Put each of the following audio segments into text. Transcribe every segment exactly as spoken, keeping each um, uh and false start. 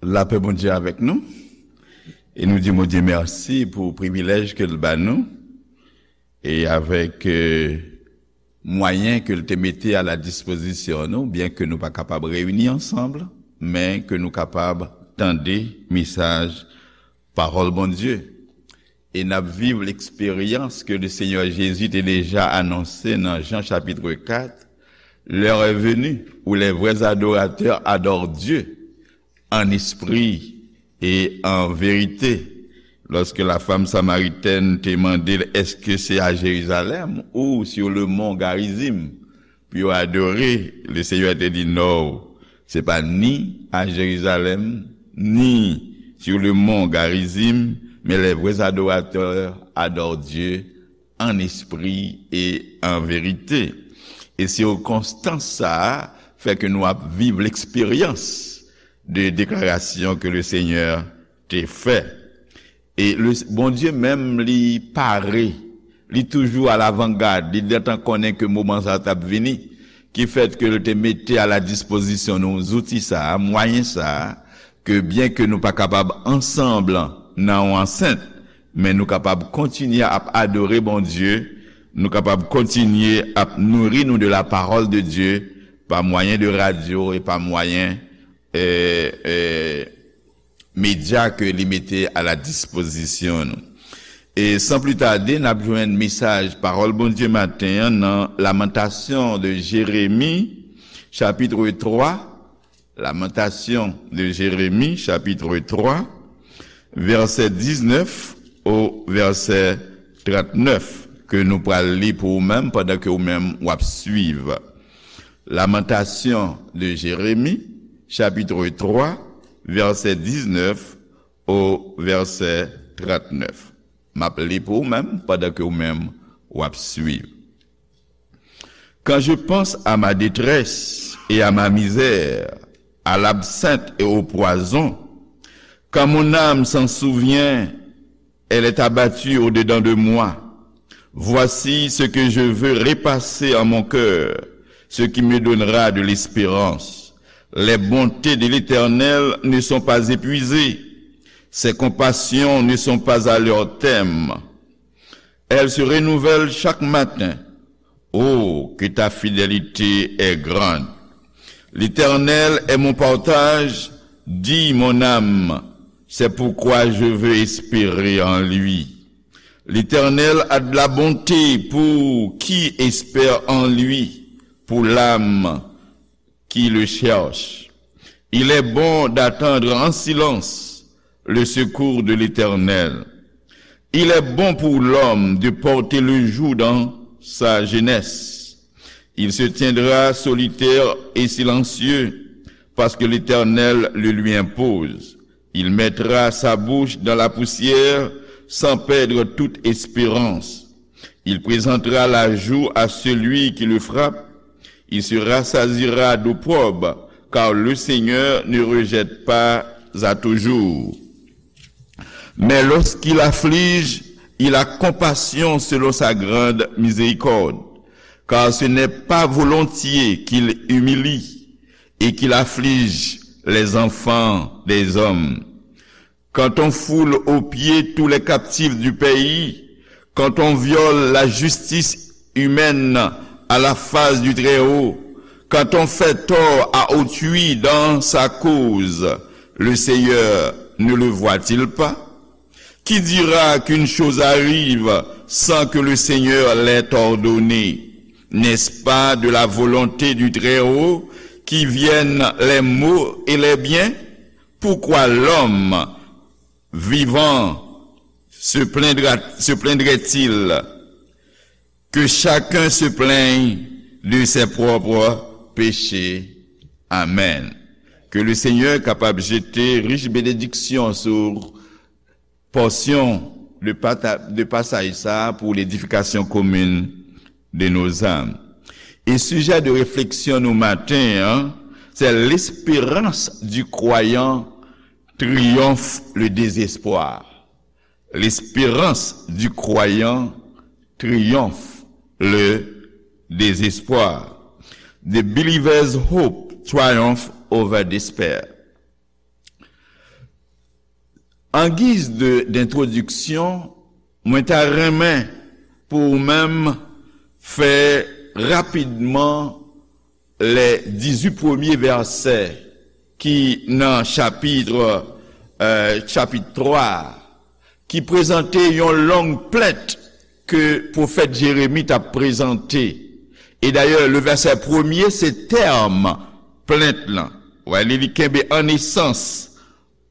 Lapè Bondye avèk nou. E nou di Bondye mèsi pou privilèj ke l ba nou. E avèk, euh, mwayen ke l te mete a la dispozisyon nou, byen ke nou pa kapab reyini ansanm, men ke nou kapab tande mesaj pawòl Bondye. E n ap viv leksperyans ke le Senyè Jezi te deja anonse nan Jan chapit kat, L'heure est venue où les vrais adorateurs adorent Dieu en esprit et en vérité. Lòske la fanm samaritèn te mande l, èske se a Jerizalèm ou sur le mont Garizim pou yo adore, le Senyè te di, non, se pa ni a Jerizalèm, ni sur le mont Garizim, men les vrais adorateurs adorent Dieu en esprit et en vérité. E sikonstans sa a fè ke nou ap viv leksperyans de deklarasyon ke le Senyè te fè. E le, Bondye menm, li pare, li toujou alavangad, li gentan konnen ke moman sa a t ap vini, ki fèt ke l te mete a la dispozisyon nou zouti sa a, mwayen sa a, ke byen ke nou pa kapab ansanm nan yon ansent, men nou kapab kontinye ap adore Bondye, nou kapab kontinye ap nouri nou de la parole de Dieu pa mwayen de radyo e pa mwayen, euh, euh, medya ke li mete a la dispozisyon nou. E san pli tade, n ap jwenn mesaj pawòl Bondye maten an nan Lamantasyon de Jeremi, chapit twa, Lamentation de Jérémie, chapitre trois, verset dix-neuf au verset trente-neuf, ke nou pral li pou ou menm pandan ke ou menm w ap swiv. Lamentation de Jérémie, chapitre trois, verset dix-neuf au verset trente-neuf. M ap li pou ou menm pandan ke ou menm w ap swiv. Quand je pense à ma détresse et à ma misère, à l'absinthe et au poison, quand mon âme s'en souvient, elle est abattue au-dedans de moi. Voici ce que je veux repasser en mon cœur, ce qui me donnera de l'espérance. Les bontés de l'Éternel ne sont pas épuisées, ses compassions ne sont pas à leur terme. Elles se renouvellent chaque matin. Oh, que ta fidélité est grande. L'Éternel est mon partage, dit mon âme. C'est pourquoi je veux espérer en lui. L'Éternel a de la bonté pour qui espère en lui, pour l'âme qui le cherche. Il est bon d'attendre en silence le secours de l'Éternel. Il est bon pour l'homme de porter le joug dans sa jeunesse. Il se tiendra solitaire et silencieux, parce que l'Éternel le lui impose. Il mettra sa bouche dans la poussière sans perdre toute espérance. Il présentera la joue à celui qui le frappe. Il se rassasiera d'eau propre, car le Seigneur ne rejette pas à toujours. Mais lorsqu'il afflige, il a compassion selon sa grande miséricorde, car ce n'est pas volontiers qu'il humilie et qu'il afflige les enfants des hommes. Quand on foule aux pieds tous les captifs du pays, quand on viole la justice humaine à la face du Très-Haut, quand on fait tort à autrui dans sa cause, le Seigneur ne le voit-il pas? Qui dira qu'une chose arrive sans que le Seigneur l'ait ordonnée? N'est-ce pas de la volonté du Très-Haut qui viennent les maux et les biens? Pourquoi l'homme vivant se plaindra, se plaindrait-il? Que chacun se plaigne de ses propres péchés. Amen. Ke le Senyè kapab jete rich benediksyon sou pòsyon de, pata, de pasaj sa a pou ledifikasyon komin de nos âmes. E sijè de refleksyon nou maten an, c'est l'espérance du croyant triomphe le désespoir. L'espérance du croyant triomphe le désespoir. The believer's hope triumph over despair. An giz de, d'entwodiksyon, mwen ta renmen pou ou menm fè rapidman lè dizuit premye vèsè ki nan chapit, euh, chapit twa, ki prezante yon long plent ke pwofèt Jeremi t ap prezante. E dayè, le vèsè premye, se tèm plent lan. Wè, li, li kenbe an esans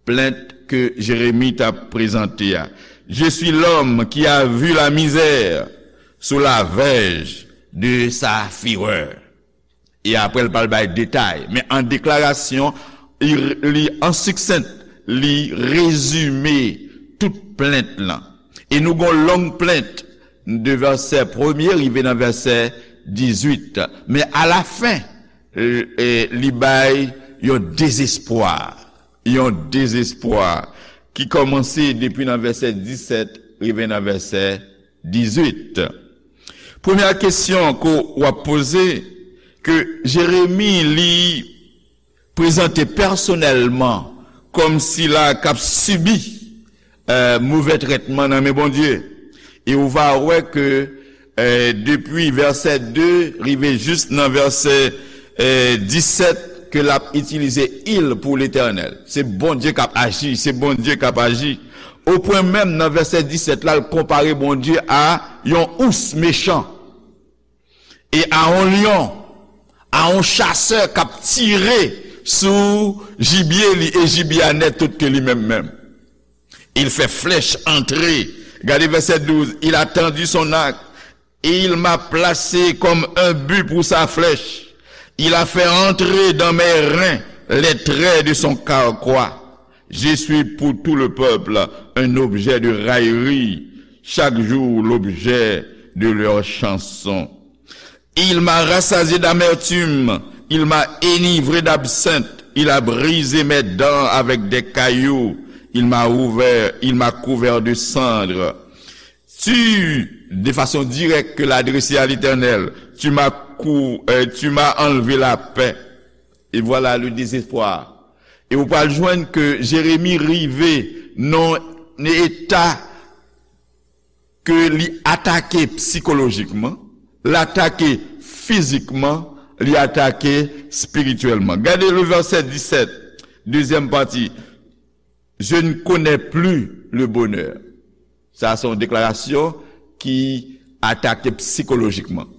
plent ke Jeremi t ap prezante a. Je suis l'homme qui a vu la misère sous la verge de sa fureur. E apre, l pral bay detay. Men an deklarasyon, li, li an siksent, li rezime tout plent lan. E nou gon long plent de vèsè premye rive nan vèsè dizuit. Men alafen, e, e, li bay yon dezespwa. Yon dezespwa ki kòmanse depi nan vèsè disèt rive nan vèsè dizuit. Premyè kesyon ke w ap poze, ke Jeremi li prezante pèsonèlman kòm sila k ap sibi, euh, move trètman nan men Bondye. E ou va wè ke, euh, depi vèsè de rive jis nan vèsè, euh, disèt, ke l ap itilize il pou Letènèl. Se Bondye k ap aji, se Bondye k ap aji. Opwen menm nan vèsè disèt la, l konpare Bondye a yon ous mechan e a yon lyon, a yon chasè k ap tire sou jibye li, e jibye a nèt tout ke li menm menm. Il fait flèche entrer. Gade vèsè douz. Il a tendu son arc et il m'a placé comme un but pour sa flèche. Il a fait entrer dans mes reins les traits de son carquois. Je suis pour tout le peuple un objet de raillerie, chaque jour l'objet de leurs chansons. Il m'a rassasié d'amertume, il m'a enivré d'absinthe, il a brisé mes dents avec des cailloux, il m'a ouvert, il m'a couvert de cendres. Tu, de façon directe, ke l adrese a Letènèl, tu m'as cou-, euh, tu m'as enlevé la paix. Et voilà le désespoir. E ou pral jwenn ke Jeremi rive nan eta ke li atake sikolojikman, l atake fizikman, li atake espirityèlman. Gade le vèsè disèt, dezyèm pati. Je ne connais plus le bonheur. Sa se yon deklarasyon ki atake sikolojikman.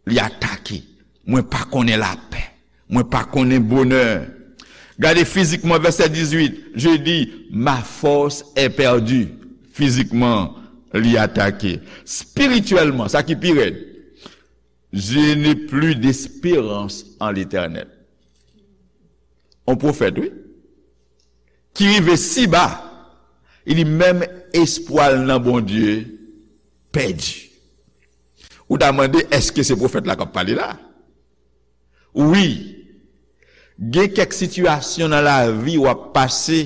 Li atake. Mwen pa konnen lapè. Mwen pa konnen bonè. Gade fizikman vèsè dizuit. Je dis, ma force est perdue. Fizikman, li atake. Espirityèlman, sa ki pi rèd. Je n'ai plus d'espérance en l'Éternel. On pwofèt, wi. Ki rive si ba, li di menm espwa l nan Bondye pèdi. Ou ta mande, èske se pwofèt la k ap pale la? Wi, gen kèk sitiyasyon nan lavi w ap pase,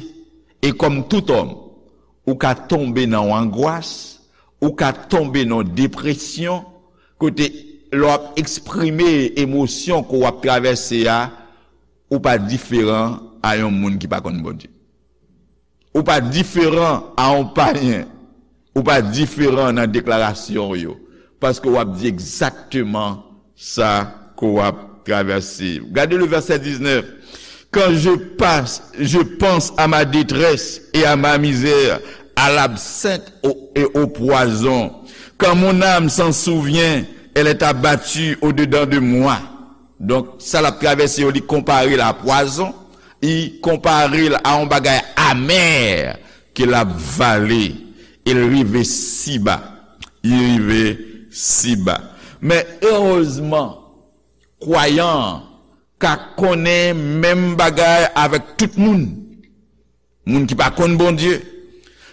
e kòm tout òm, ou ka tonbe nan yon angwas, ou ka tonbe nan yon depresyon, kote lè w ap eksprime emosyon ke w ap travèse a, ou pa diferan a yon moun ki pa konn Bondye. Ou pa diferan a yon payen. Ou pa diferan nan deklarasyon w yo. Paske w ap di egzakteman sa ke w ap travèse. Gade le vèsè diznèf. Quand je passe, je pense à ma détresse et à ma misère, à l'absinthe au- et au poison. Quand mon âme s'en souvient, elle est abattue au-dedans de moi. Donk, sa l ap travèse yo, li konpare l a pwazon, li konpare l a yon bagay amè ke l ap vale, e l rive si ba. Li rive si ba. Men erezman, kwayan an ka konnen menm bagay avèk tout moun. Moun ki pa konn Bondye,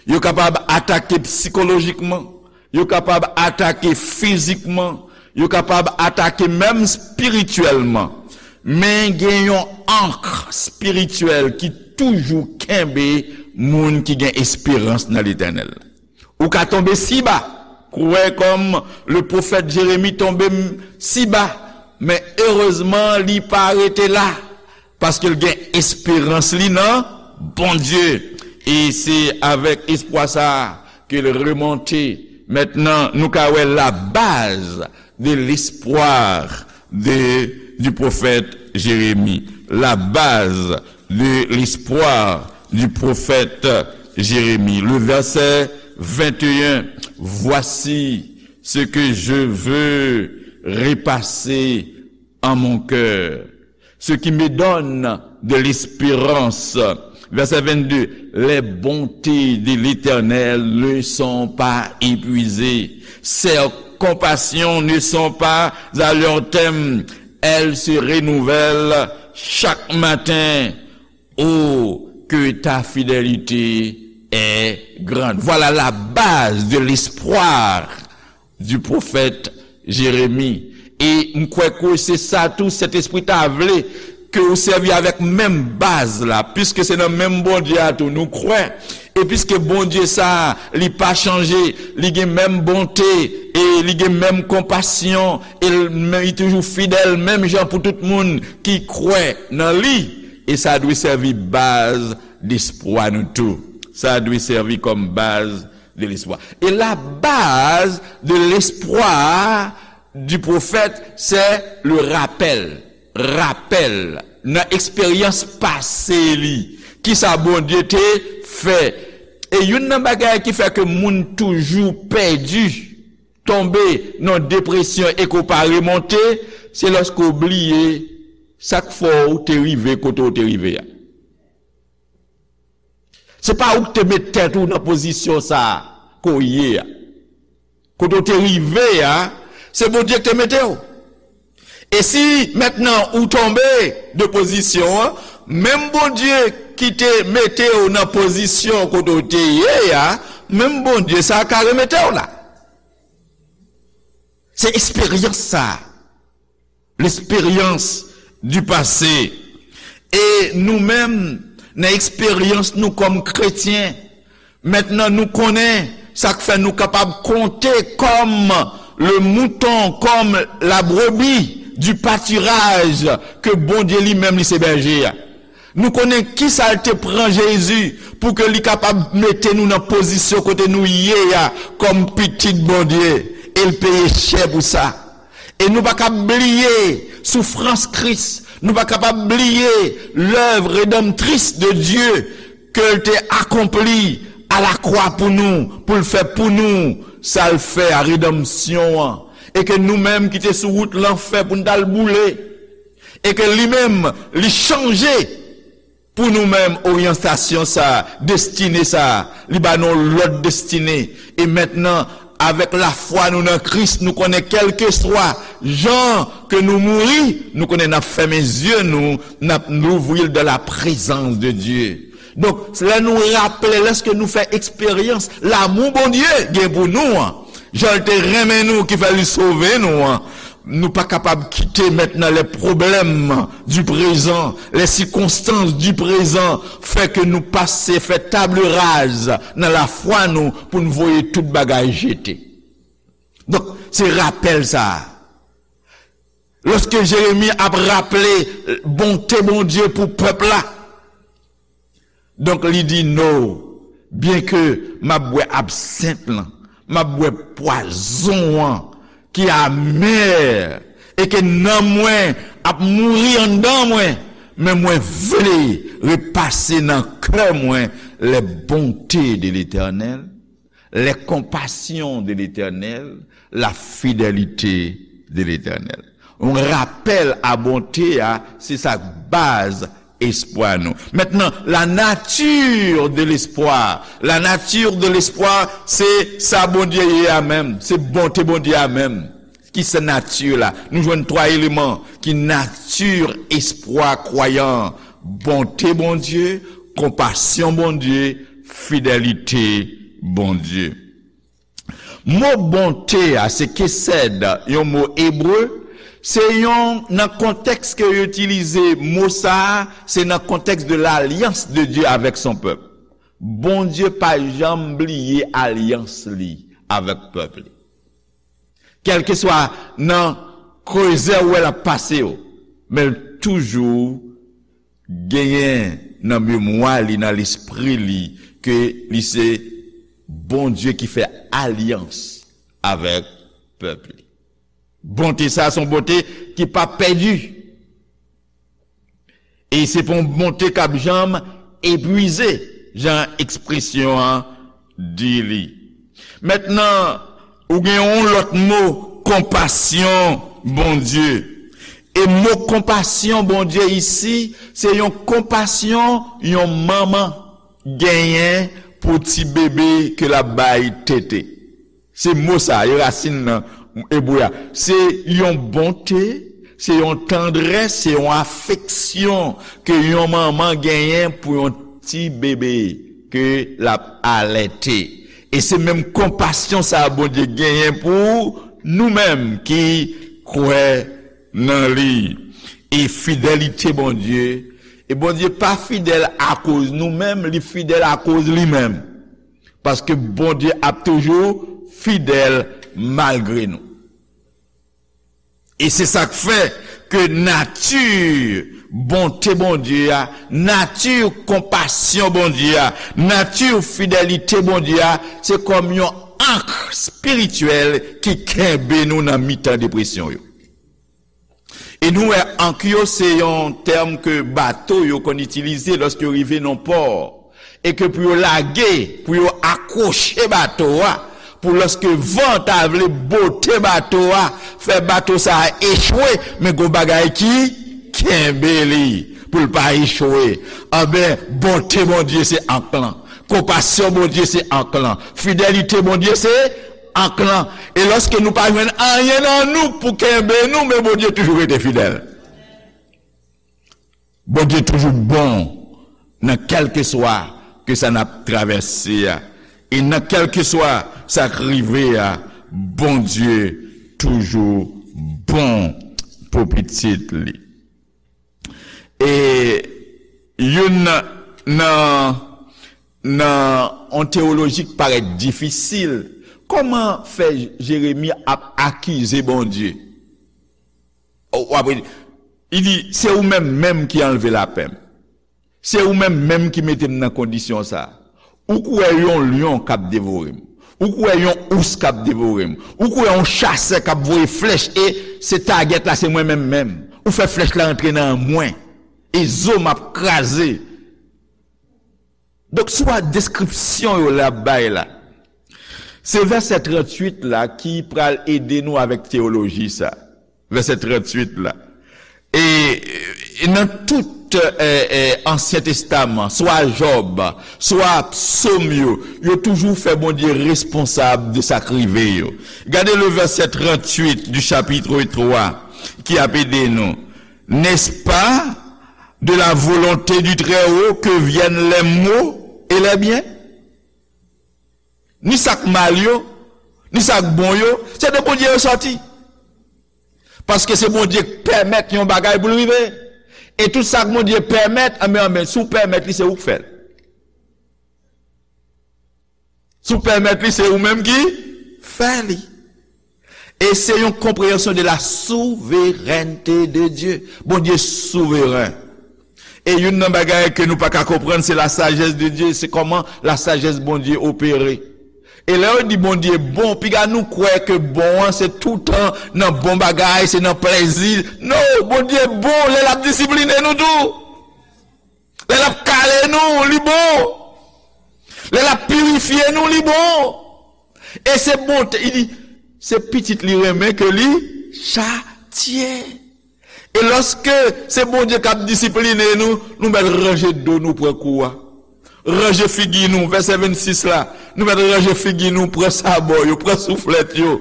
yo kapab atake sikolojikman, yo kapab atake fizikman, yo kapab atake menm espirityèlman. Men gen yon ank espirityèl ki toujou kenbe moun ki gen esperans nan Letènèl. Ou ka tonbe si ba, kwè kòm le pwofèt Jeremi tonbe m- si ba, men erezman li pa rete la, paske l gen esperans li nan Bondye. E se avèk espwa sa a ke l remonte. Mentnan, nou ka wè la base de l'espoir de, du prophète Jérémie. La base de l'espoir du prophète Jérémie. Le verset vingt et un, voici ce que je veux repasser en mon cœur, ce qui me donne de l'espérance. Verset vingt-deux, les bontés de l'Éternel ne sont pas épuisées. Ses compassions ne sont pas à leur terme. Elles se renouvellent chaque matin. Oh, que ta fidélité est grande. Voilà la base de l'espoir du prophète Jérémie. E m kwè ke se sa tou Sentespri ta vle ke ou sèvi avèk menm baz la, piske se nan menm Bondye a tou nou kwè. E piske Bondye sa a, li pa chanje, li gen menm bonte, e li gen menm konpasyon, e l, men li toujou fidèl, menm jan pou tout moun ki kwè nan li. E sa dwe sèvi baz lespwa nou tou. Sa dwe sèvi kòm baz de l'espoir. Et la base de l'espoir du prophète, c'est le rappel. Rapèl nan eksperyans pase li. Kisa Bondye te fè? E youn nan bagay ki fè ke moun toujou pèdi, tonbe nan depresyon e ke w pa remonte, se lòske w bliye sa k fè w te rive kote w te rive a. Se pa ou ki te met tèt ou nan pozisyon sa a ke w ye a. Kote w te rive a, se Bondye ki te mete w. E si mentnan ou tonbe de pozisyon an, menm Bondye ki te mete w nan pozisyon kote w te ye a, menm Bondye sa a ka remete w la. Se eksperyans sa a. L'expérience du passé. E nou menm, nan eksperyans nou kòm kretyen, mentnan nou konnen sa k fè nou kapab konte kòm le mouton, comme la brebis du pâturage ke Bondye li menm li se bèje a. Nou konnen kisa l te pran Jezi pou ke li kapab mete nou nan pozisyon kote nou ye a kòm pitit Bondye, e l peye chè pou sa. E nou pa kab bliye soufrans Kris, nou pa kapab bliye lèv redanmtris de Dye ke l te akonpli a la kwa pou nou, pou l fè pou nou sa l fè a, redanmsyon an. E ke nou menm ki te sou wout lanfè pou n t al boule, e ke li menm, li chanje pou nou menm oryantasyon sa, destine sa, li ba nou lòt destine. E mentnan, avèk lafwa nou nan Kris, nou konnen kèlkeswa jan ke nou mouri, nou konnen n ap fèmen zye nou, n ap louvri l dans la présence de Dieu. Donk, lè nou raple, lèske nou fè eksperyans lamou Bondye gen pou nou an, jan l te renmen nou ki fè li sove nou an, nou pa kapab kite mentnan les problèmes du présent, les circonstances du présent fè ke nou pase fè table rase nan lafwa nou pou n voye tout bagay jete. Donk, se rapèl sa a. Lòske Jeremi ap raple bonte Bondye pou pèp la, donk, li di, no, byenke m ap bwè absent lan, m ap bwè pwazon an ki amè, e ke nanm mwen ap mouri anndan mwen, men mwen vle repase nan kè mwen les bontés de l'Éternel, les compassions de l'Éternel, la fidélité de l'Éternel. Yon rapèl a bonte a, se sa k baz espwa nou. Mentnan, la nature de l'espoir. La nature de l'espoir, se sa Bondye ye a menm. Se bonte Bondye a menm. Ki se nati la? Nou jwenn twa eleman ki nati espwa kwayan an. Bonte Bondye, konpasyon Bondye, fidelite Bondye. Mo bonte a, se kesèd, yon mo ebre, se yon, nan kontèks ke yo itilize mo sa a, se nan kontèks de l'alyans de Dieu avec son peuple. Bondye pa janm bliye alyans li avèk pèp li. Kèlkeswa nan krezè ou wè l ap pase yo, men l toujou genyen nan memwa li, nan lespri li, ke li se Bondye ki fè alyans avèk pèp li. Bonte sa a se yon bonte ki p ap pèdi. E se pa yon bonte k ap janm epwize, jan ekspresyon an di li. Mentnan, ou gen yon lòt mo, konpasyon Bondye. E mo konpasyon Bondye isi, se yon konpasyon yon manman genyen pou ti bebe ke l ap bay tete. Se mo sa, e rasin nan ebre a. Se yon bonte, se yon tandrès, se yon afeksyon ke yon manman genyen pou yon ti bebe ke l ap alète. E se menm konpasyon sa a Bondye genyen pou nou menm ki kwè nan li. E fidelite Bondye, e Bondye pa fidèl akoz nou menm, li fidèl akoz li menm. Paske Bondye ap toujou fidèl malgre nou. E se sa k fè ke nati bonte Bondye a, nati konpasyon Bondye a, nati fidelite Bondye a, se kòm yon ank espirityèl ki kenbe nou nan mitan depresyon yo. E nou wè, ank yo se yon tèm ke bato yo konn itilize lòske yo rive nan pò. E ke pou yo lage, pou yo akwoche bato a, pou lòske van ta vle bote bato a, fè bato sa a echwe, men gon bagay ki kenbe li, pou l pa echwe. Anben, bonte Bondye se ank lan. Konpasyon Bondye se ank lan. Fidelite Bondye se ank lan. E lòske nou pa jwenn anyen nan nou pou kenbe nou, men Bondye toujou rete fidèl. Bondye toujou bon nan kèlkeswa ke sa n ap travèse a. E nan kèlkeswa sa k rive a, Bondye toujou bon pou pitit li. E youn nan, nan, nan yon teyoloji k parèt difisil, kòman fè Jeremi ap akize Bondye? O, w ap li di, se ou menm menm ki anlve lapè m. Se ou menm menm ki mete m nan kondisyon sa a. Ou kwè yon lyon k ap devore m. Ou kwè yon ous k ap devore m. Ou kwè yon chasè k ap voye flèch e se tagèt la, se mwen menm menm. Ou fè flèch la rantre nan mwen. E zo m ap kraze. Donk, si w a deskripsyon yo l ap bay la, se vèsè tranntuit la ki pral ede nou avèk teyoloji sa. Vèsè tranntuit la. E, e nan tout, e, e, Ansyen Testaman, swa Jòb, swa Sòm yo, yo toujou fè Bondye responsab de sa k rive yo. Gade le verset trente-huit du chapitre trois ki ap ede nou. N'est-ce pas de la volonté du Très-Haut que viennent les maux et les biens? Ni sa k mal yo, ni sa k bon yo, se de Bondye yo sòti. Paske se Bondye k pèmèt yon bagay pou l rive. E tout sa k Bondye pèmèt, anben, anben, si w pèmèt li, se ou k fè l. Si w pèmèt li, se ou menm ki fè li. E se yon konpreyansyon de la souverènte de Dye. Bondye souveren. E youn nan bagay ke nou pa ka konprann, se la sajès de Dye, se kòman la sajès Bondye opere. E lè yo di Bondye bon, piga nou kwè ke bon an, se toutan nan bon bagay, se nan plèzi. Non, Bondye bon, lè l ap disipline nou tou. Lè l ap kale nou, li bon. Lè l ap pirifye nou, li bon. E se bonte, li di, se pitit li renmen ke li chatye. E lòske se Bondye k ap disipline nou, nou mèt ranje do nou, pran kou a. Ranje figi nou, vèsè vennsis la, nou mèt ranje figi nou, pran sabò yo, pran souflèt yo.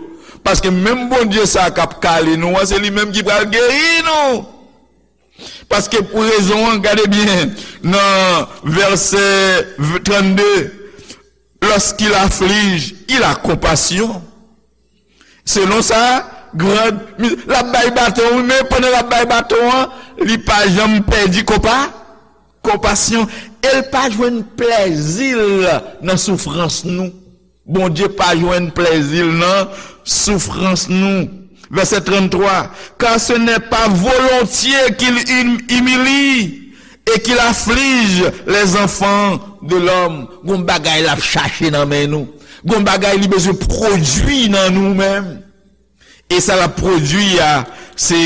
Paske menm Bondye sa a k ap kale nou an, se li menm ki pral geri nou. Paske pou rezon an, gade byen, nan vèsè trannde, lorsqu'il afflige, il a compassion. Selon sa, grand, l ap bay baton, wi, men pandan l ap bay baton an, li pa janm pèdi konpa, konpasyon. E l pa jwenn plèzi l nan soufrans nou. Bondye pa jwenn plèzi l nan soufrans nou. Vèsè tranntwa, car ce n'est pas volontiers qu'il hum- humilie, et qu'il afflige les enfants de l'homme. Gon bagay l ap chache nan men nou. Gon bagay li bezwen pwodui nan nou menm. E sa l ap pwodui a, se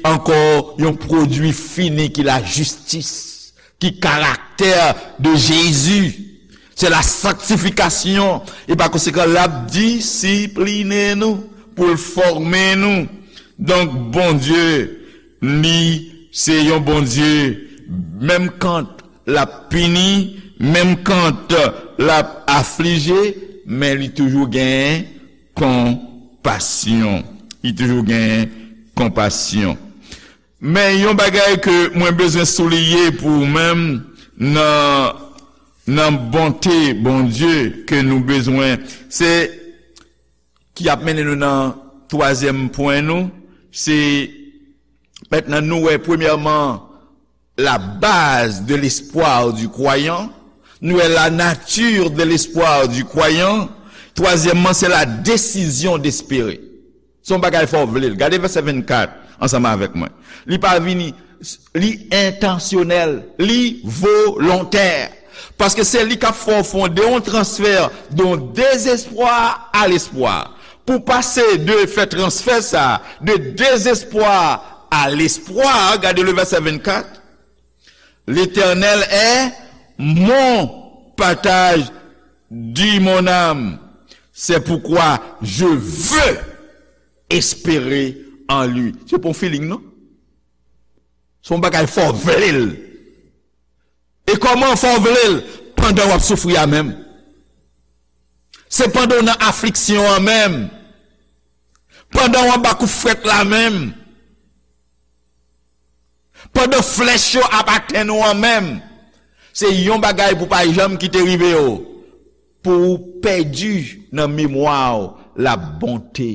ankò yon pwodui fini ki lajistis, ki karaktè de Jezi. Se la sanktifikasyon. E pa konsekan, l ap disipline nou pou l fòme nou. Donk, Bondye, li se yon Bondye, menm kan l ap pini, menm kan l ap aflije, men li toujou gen konpasyon. Li toujou gen konpasyon. Men yon bagay ke mwen bezwen souliye pou ou menm nan, nan bonte Bondye ke nou bezwen, se ki ap mennen nou nan twazyèm pwen nou, se mentnan nou wè premyèman la base de l'espoir du croyant, nou wè la nature de l'espoir du croyant, twazyèmman se la décision d'espérer. Se yon bagay fò w vle l. Gade vèsè vennkat ansanm avèk mwen. Li pa vini, li entansyonèl, li volontè. Paske se li k ap fè w fonde yon transfè de yon dezespwa a lespwa. Pou pase de fè transfè sa, de dezespwa a lespwa, gade le vèsè vennkat. L'Éternel est mon partage, dit mon âme. C'est pourquoi je veux espérer en lui. Se pa yon feeling, non. Se yon bagay fò w vle l. E kòman fò w vle l? Pandan w ap soufri a menm. Se pandan w nan afliksyon an menm. Pandan w anba kout frèt la menm. Pandan flèch yo ap atenn ou an menm. Se yon bagay pou pa janm kite rive w. Pou w pèdi nan memwa w la bonte,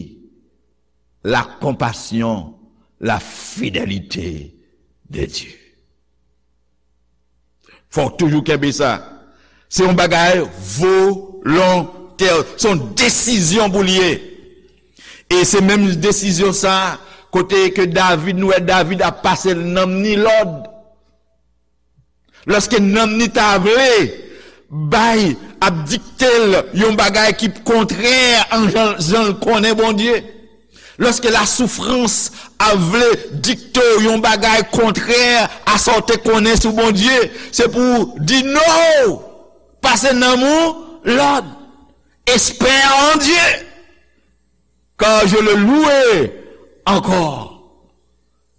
la compassion, la fidélité de Dieu. Fò w toujou kenbe sa. Se yon bagay volontè. Se yon desizyon pou l ye. E se menm desizyon sa, kote ke David, nou wè David ap pase nanm ni lòd. Lòske nanm ni ta vle bay, ap dikte l yon bagay ki kontrè an jan, jan l konnen Bondye. Lòske lasoufrans ap vle dikte w yon bagay kontrè a sa w te konnen sou Bondye, se pou w di no, pase nanm ou lòd, espère en Dieu, car je le louerai encore,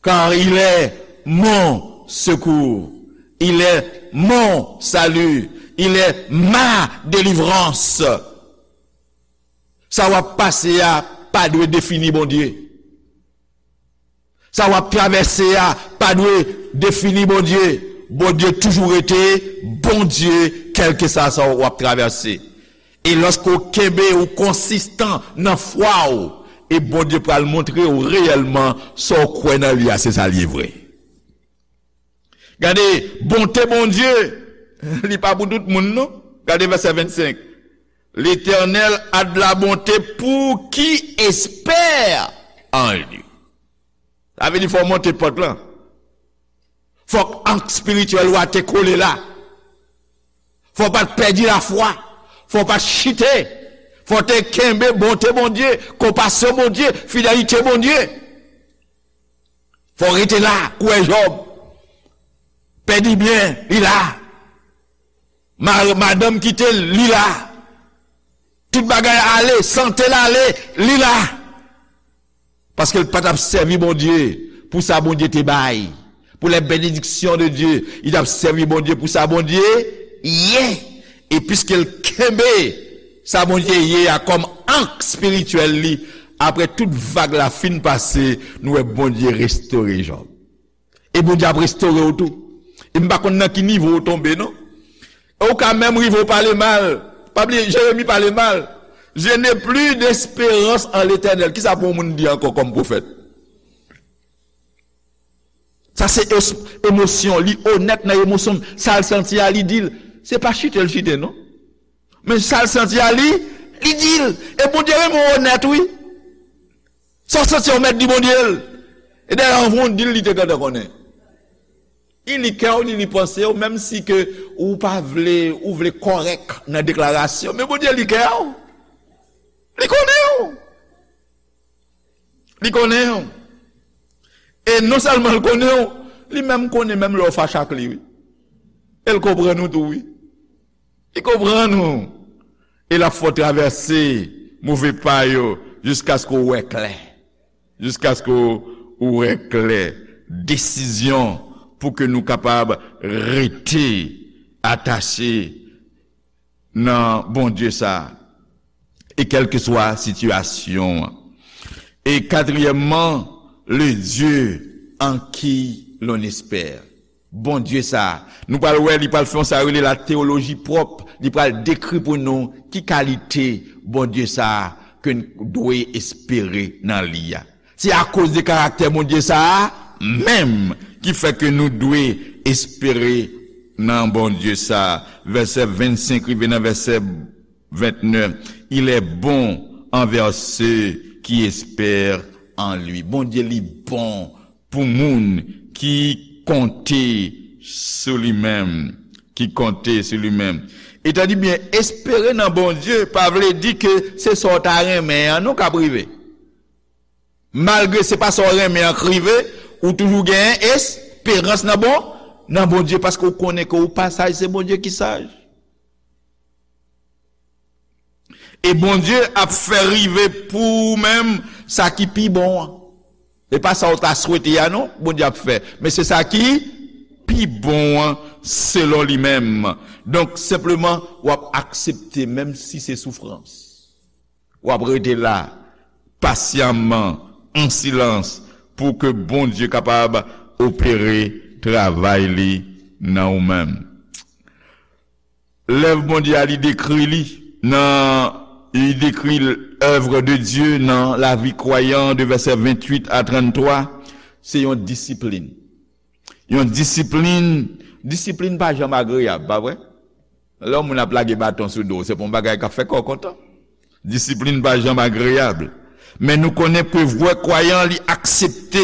car il est mon secours, il est mon salut, il est ma délivrance. Sa w ap pase a pa dwe defini Bondye. Sa w ap travèse a pa dwe defini Bondye. Bondye toujou rete Bondye, kèlkeswa sa w ap travèse. E lòske w kenbe, ou konsistan nan fwa w, e Bondye pral montre w reyèlman sa w kwè nan li a, se sa l ye vre. Gade, bonte Bondye, li pa pou tout moun, non. Gade vèsè vennsenk. L'Éternel a de la bonté pour qui espère en lui. Sa vle di fò w monte pant lan. Fòk ank espirityèl ou a te kole la. Fò w pa t pèdi lafwa. Fò w pa t chite. Fò w te kenbe bonte Bondye, konpasyon Bondye, fidelite Bondye. Fò w rete la, kwè Jòb. Pèdi byen, li la. Ma-, madanm kite l, li la. Tout bagay ale, sante l ale, li la. Paske l pa t ap sèvi Bondye pou sa Bondye te bay. Pour les bénédictions de Dieu, li t ap sèvi Bondye pou sa Bondye ye. E piske l kenbe sa Bondye ye a kòm ank espirityèl li, apre tout vag la fin pase, nou wè Bondye restore Jòb. E Bondye ap restore w tou. E m pa konn nan ki nivo w tonbe, non. E w ka menm rive w pale mal. Pa bliye, Jeremi pale mal. Je n'ai plus d'espérance en l'Éternel. Kisa pou yon moun di ankò kòm pwofèt? Sa se es-, emosyon. Li onèt nan emosyon l. Sa l santi a, li di l. Se pa chite l chite, non. Men sa l santi a, li, li di l. E Bondye renmen w onèt, wi. Sa w santi a, w mèt di Bondye l. E dayè, anvan w di l, li te gentan konnen. Li li kè w, li li panse w, menm si ke ou pa vle, ou vle kòrèk nan deklarasyon, men Bondye li kè w. Li konnen w. Li konnen w. E non sèlman l konnen w, li menm konnen menm lè w fache ak li, wi. E l konprann ou tou, wi. Li konprann ou. E l ap fè w travèse move pa yo jiskaske w wè klè. Jiskaske w wè klè. Desizyon pou ke nou kapab rete atache nan Bondye sa a, e kèlkeswa sitiyasyon an. E katriyèmman, le Dieu en qui l'on espère. Bondye sa a, nou pral wè, li pral fè yon sa yo rele la teyoloji pwòp, li pral dekri pou nou ki kalite Bondye sa a ke n dwe espere nan li a. Se akoz de karaktè Bondye sa a menm ki fè ke nou dwe espere nan Bondye sa a. Vèsè vennsenk rive nan vèsè vennèf, il est bon envers ceux qui espèrent en lui. Bondye li bon pou moun ki konte sou li menm, ki konte sou li menm. E tande byen, espere nan Bondye pa vle di ke se sa w ta renmen an non k ap rive. Malgre se pa sa w renmen an k rive, ou toujou genyen esperans nan bon, nan Bondye, paske w konnen ke ou pa saj, se Bondye ki saj. E Bondye ap fè rive pou ou menm sa ki pi bon an. E pa sa w ta swete a non, Bondye ap fè. Men se sa ki pi bon an selon li menm. Donk, senpleman, w ap aksepte menm si se soufrans. W ap rete la, pasyaman, an silans, pou ke Bondye kapab opere travay li nan ou menm. Lèv Bondye a, li dekri li nan, li dekri l'œuvre de Dieu nan lavi kwayan de vèsè venntuit a tranntwa, se yon disiplin. Yon disiplin, disiplin pa janm agreyab, pa vre? Lè yon moun ap lage baton sou do w, se pa yon bagay k ap fè kè w kontan. Disiplin pa janm agreyab. Men nou konnen ke vrè kwayan li aksepte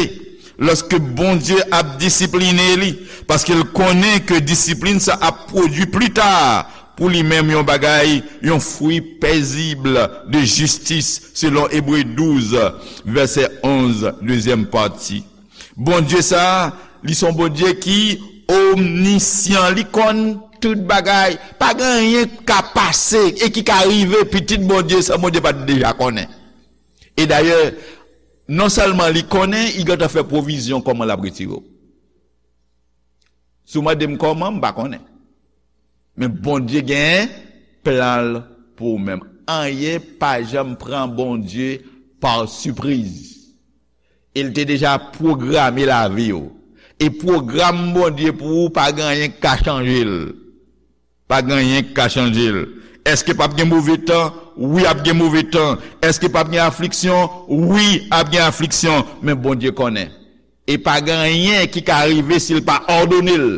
lòske Bondye ap disipline li, paske l konnen ke disiplin sa ap pwodui pli ta pou li menm yon bagay, yon fwi pezib de jistis, selon Ebre douz, vèsè onz, dezyèm pati. Bondye sa a, li se yon Bondye ki omnisyan, li konn tout bagay. Pa gen anyen k ka pase e ki ka rive pitit Bondye san Bondye pa t deja konnen. E dayè, non sèlman li konnen, li gentan fè pwovizyon kòman l ap retire w. Si w mande m kòman, m pa konnen. Men Bondye gen plan l pou ou menm. Anyen pa janm pran Bondye pa sipriz. E l te deja pwograme lavi w. E pwogram Bondye pou ou, pa gen anyen k ka chanje l. Pa gen anyen k ka chanje l. Èske p ap gen move tan? Wi, ap gen move tan. Èske p ap gen afliksyon? Wi, ap gen afliksyon. Men Bondye konnen. E pa gen anyen ki ka rive si l pa òdone l.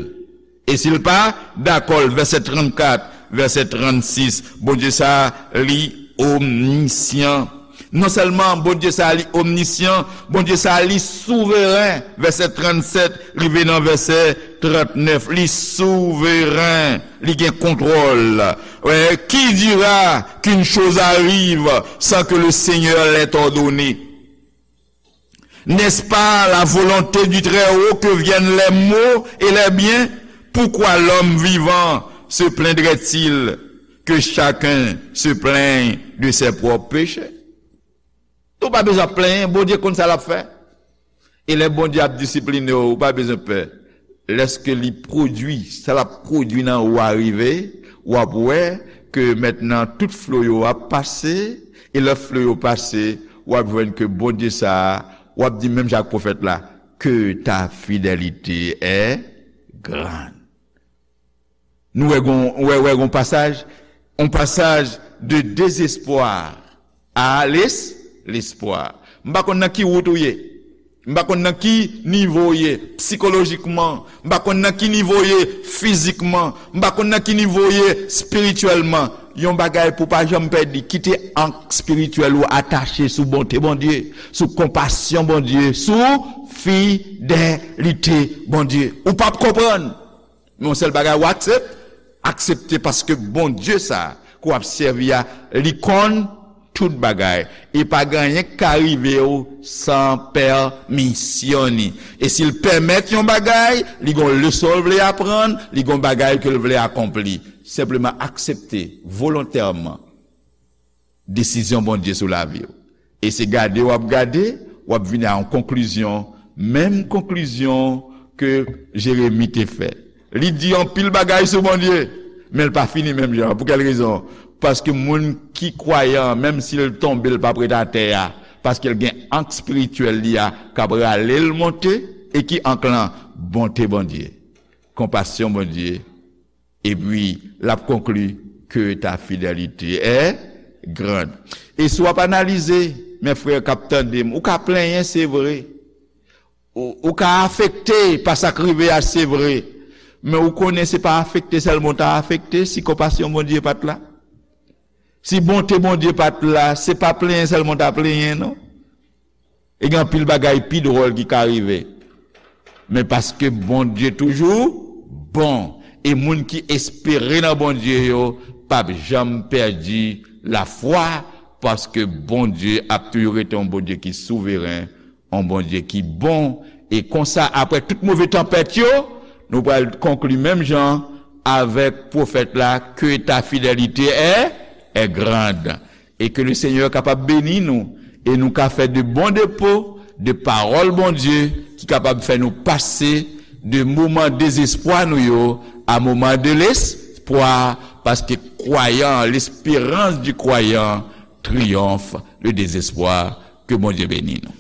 E si l pa dakò l, vèsè trannkat, vèsè trannsis, Bondye sa a, li omnisyan. Non sèlman Bondye sa a, li omnisyan, Bondye sa a, li souveren, vèsè trannsèt rive nan vèsè trannèf, li souveren, li gen kontwòl. Ouais, qui dira qu'une chose arrive sans que le Seigneur l'ait ordonnée? N'est-ce pas la volonté du Très-Haut que viennent les maux et les biens? Pourquoi l'homme vivant se plaindrait-il que chacun se plaigne de ses propres péchés? Ou pa bezwen ap plenyen, Bondye konn sa l ap fè. E lè Bondye ap disipline w, ou pa bezwen pè. Lèske li pwodui, sa l ap pwodui nan ou a rive, w ap wè ke mentnan tout flo yo ap pase, e lè flo yo pase, w ap jwenn ke Bondye sa a, w ap di menm jan ak pwofèt la, que ta fidélité est grande. Nou wè gon, wè, wè gon pasaj, yon pasaj de dezespwa a les, lespwa. M pa konn nan ki wout ou ye. M pa konn nan ki nivo w ye sikolojikman. M pa konn nan ki nivo w ye fizikman. M pa konn nan ki nivo w ye espirityèlman. Yon bagay pou w pa janm pèdi, kite ank espirityèl ou atache sou bonte Bondye, sou konpasyon Bondye, sou fidelite Bondye. Ou p ap konprann. Men yon sèl bagay ou aksepte, aksepte paske Bondye sa ke w ap sèvi a, li konn tout bagay. E pa gen anyen k ka rive w san pèmisyon ni. E si l pèmèt yon bagay, li gon leson l vle aprann, li gon bagay ke l vle akonpli. Senpleman aksepte volontèman desizyon Bondye sou lavi w. E se gade w ap gade, w ap vin a yon konklizyon, menm konklizyon ke Jeremi te fè. Li di anpil bagay sou Bondye, men l pa fini menm jan. Pou kèl rezon? Paske moun ki kwayan, menm si l tonbe, l p ap ret atè a, paske l gen ank espirityèl li a k ap rale l monte, e ki ank lan? Bonte Bondye, konpasyon Bondye, epi l ap konkli que ta fidélité est grande. E si w ap analize, men frè k ap tande m, ou ka plenyen, se vre. Ou, ou ka afekte pa sa k rive a, se vre. Men ou konnen se pa afekte sèlman w ta afekte si konpasyon Bondye pa t la. Si bonte Bondye pa t la, se pa plenyen sèlman w ta plenyen, non. E gen anpil bagay pi dwòl ki ka rive. Men paske Bondye toujou bon, e moun ki espere nan Bondye yo p ap janm pèdi lafwa, paske Bondye ap toujou rete yon Bondye ki souveren, yon Bondye ki bon. E konsa, apre tout move tanpèt yo, nou pral konkli menm jan avèk pwofèt la, que ta fidélité est, est grande. E ke le Senyè kapab beni nou, e nou ka fè de bon depo de pawòl Bondye ki kapab fè nou pase de moman dezespwa nou yo a moman de lespwa, paske kwayan, l'espérance du croyant triomphe le désespoir. Ke Bondye beni nou.